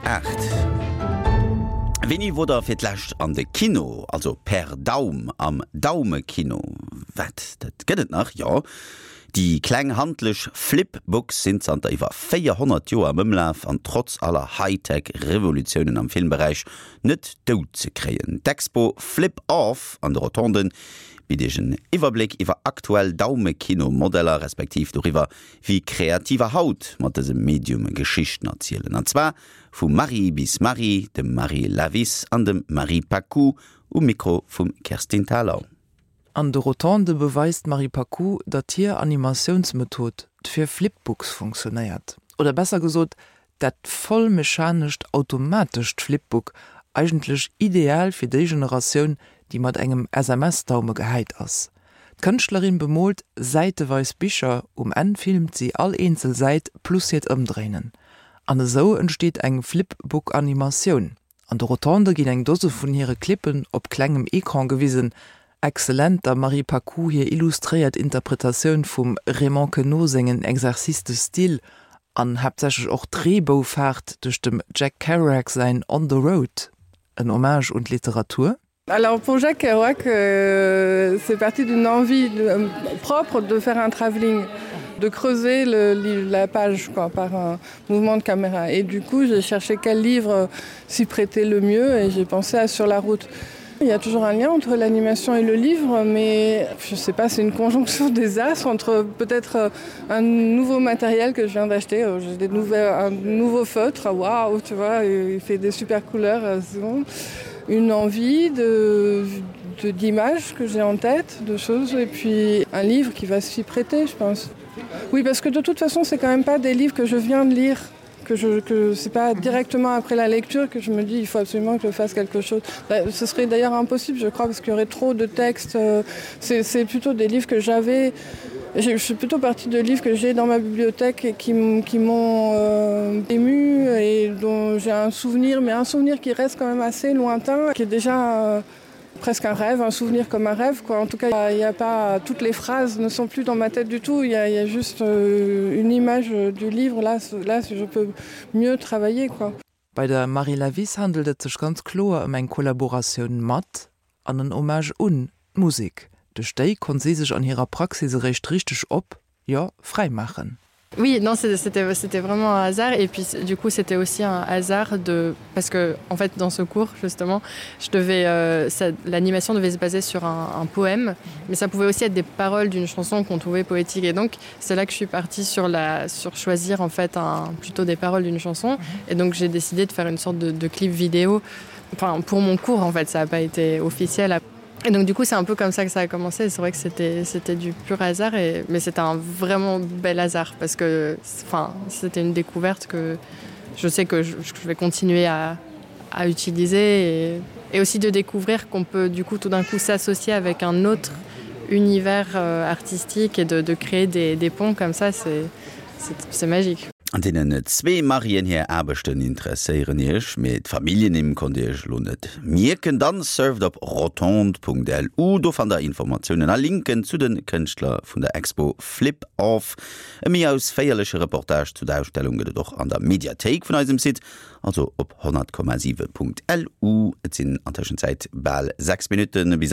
8. Wéini wor der fir d'lescht an de Kino, also per Daum am Daumekino? Wat, dat gëtt et nach? Jo, déi kleng handlech Flipbooks sinn zanter iwwer 400 Joer am Ëmlaf an trotz aller Hightech-Revolutiounen am Filmberäich net dout ze kréien. D'Expo Flip Off an de Rotonden bitt Iech en Iwwerbléck iwwer aktuell Daumekino-Modeller, respektiv doriwwer, wéi Kreativer haut mat dësem Medium Geschichten erzielen. An zwar vu Marie bis Marie, dem Marie Lavis an dem Marie Paccoud um Mikro vum Kerstin Thalau. An de Rotondë beweist d'Marie Paccoud, datt hir Animatiounsmethod fir Flipbooks funktionéiert. Oder besser gesot, Dat voll mechanescht automatescht Flipbook, eigentlech ideal fir déi Generatioun, déi mat engem SMS-Daume gehäit ass. D'Kënschtlerin bemoolt säiteweis Bicher, um Enn filmt si all eenzel Säit plus hiert Ëmdréinen. An esou entsteet eng Flipbook-Animatioun. An de Rotondë ginn eng Dose vun hire Clippen op klengem Ecran gewisen. Excellent der Marie Paccou hir illustréiert Interpretatioun vum Raymond Queneau sengen Exercices de style an haaptsächlech och d'Reeboufaart duerch dem Jack Kerouac säin On the Road, en Hommage un d'Literatur. Alors pour Jacques Kerouac, euh, c'est parti d'une envie de, euh, propre de faire un travelling, de creuser le, la page quoi, par un mouvement de caméra. Et du coup, j'ai cherché quel livre s'y prêtait le mieux et j'ai pensé à Sur la route. Il y a toujours un lien entre l'animation et le livre, mais je sais pas, c'est une conjonction des as entre peut-être euh, un nouveau matériel que je viens d'acheter, euh, j'ai des nouvelles, un nouveau feutre, waouh, tu vois, il fait des super couleurs, euh, bon une envie de d'images que j'ai en tête, de choses et puis un livre qui va s'y prêter, je pense. Oui, parce que de toute façon, c'est quand même pas des livres que je viens de lire que je que c'est pas directement après la lecture que je me dis il faut absolument que je fasse quelque chose. Bah, ce serait d'ailleurs impossible, je crois, parce qu'il y aurait trop de textes. Euh, c'est plutôt des livres que j'avais je suis plutôt partie de livres que j'ai dans ma bibliothèque et qui, qui m'ont euh, ému et dont j'ai un souvenir, mais un souvenir qui reste quand même assez lointain, qui est déjà euh, presque un rêve, un souvenir comme un rêve quoi. En tout cas, il n'y a pas toutes les phrases ne sont plus dans ma tête du tout, il y a, il y a juste euh, une image du livre là, là je peux mieux travailler quoi. Bei der Marie Lavis handelt et sech ganz kloer ëm eng Kollaboratioun mat, an en Hommage un, d'Musek. Duerch déi konnt si sech an hirer Praxis eréischt richteg op, jo, fräi maachen. Oui, non, c'était c'était vraiment un hasard et puis du coup c'était aussi un hasard de parce que en fait dans ce cours justement je devais euh, l'animation devait se baser sur un, un poème mais ça pouvait aussi être des paroles d'une chanson qu'on trouvait poétique et donc c'est là que je suis partie sur la sur choisir en fait un plutôt des paroles d'une chanson et donc j'ai décidé de faire une sorte de, de clip vidéo enfin pour mon cours en fait ça n'a pas été officiel après Et donc du coup c'est un peu comme ça que ça a commencé c'est vrai que c'était c'était du pur hasard et mais c'était un vraiment bel hasard parce que enfin c'était une découverte que je sais que je, je vais continuer à, à utiliser et, et aussi de découvrir qu'on peut du coup tout d'un coup s'associer avec un autre univers euh, artistique et de, de créer des, des ponts comme ça c'est magique. An deenen zwee Marien hir Aarbechten interesséieren Iech, mee d'Familljennimm konnt Dir Iech elo net mierken? Dann surft op rotonde.lu, do fannt der Informatiounen a Linken zu de Kënschtler vun der Expo Flip Off. E méi ausféierleche Reportage zu der Ausstellung gëtt et och an der Mediathéik vun eisem Site, also op 100,7.lu. Et sinn an Tëschenzäit bal 6 Minutte bis.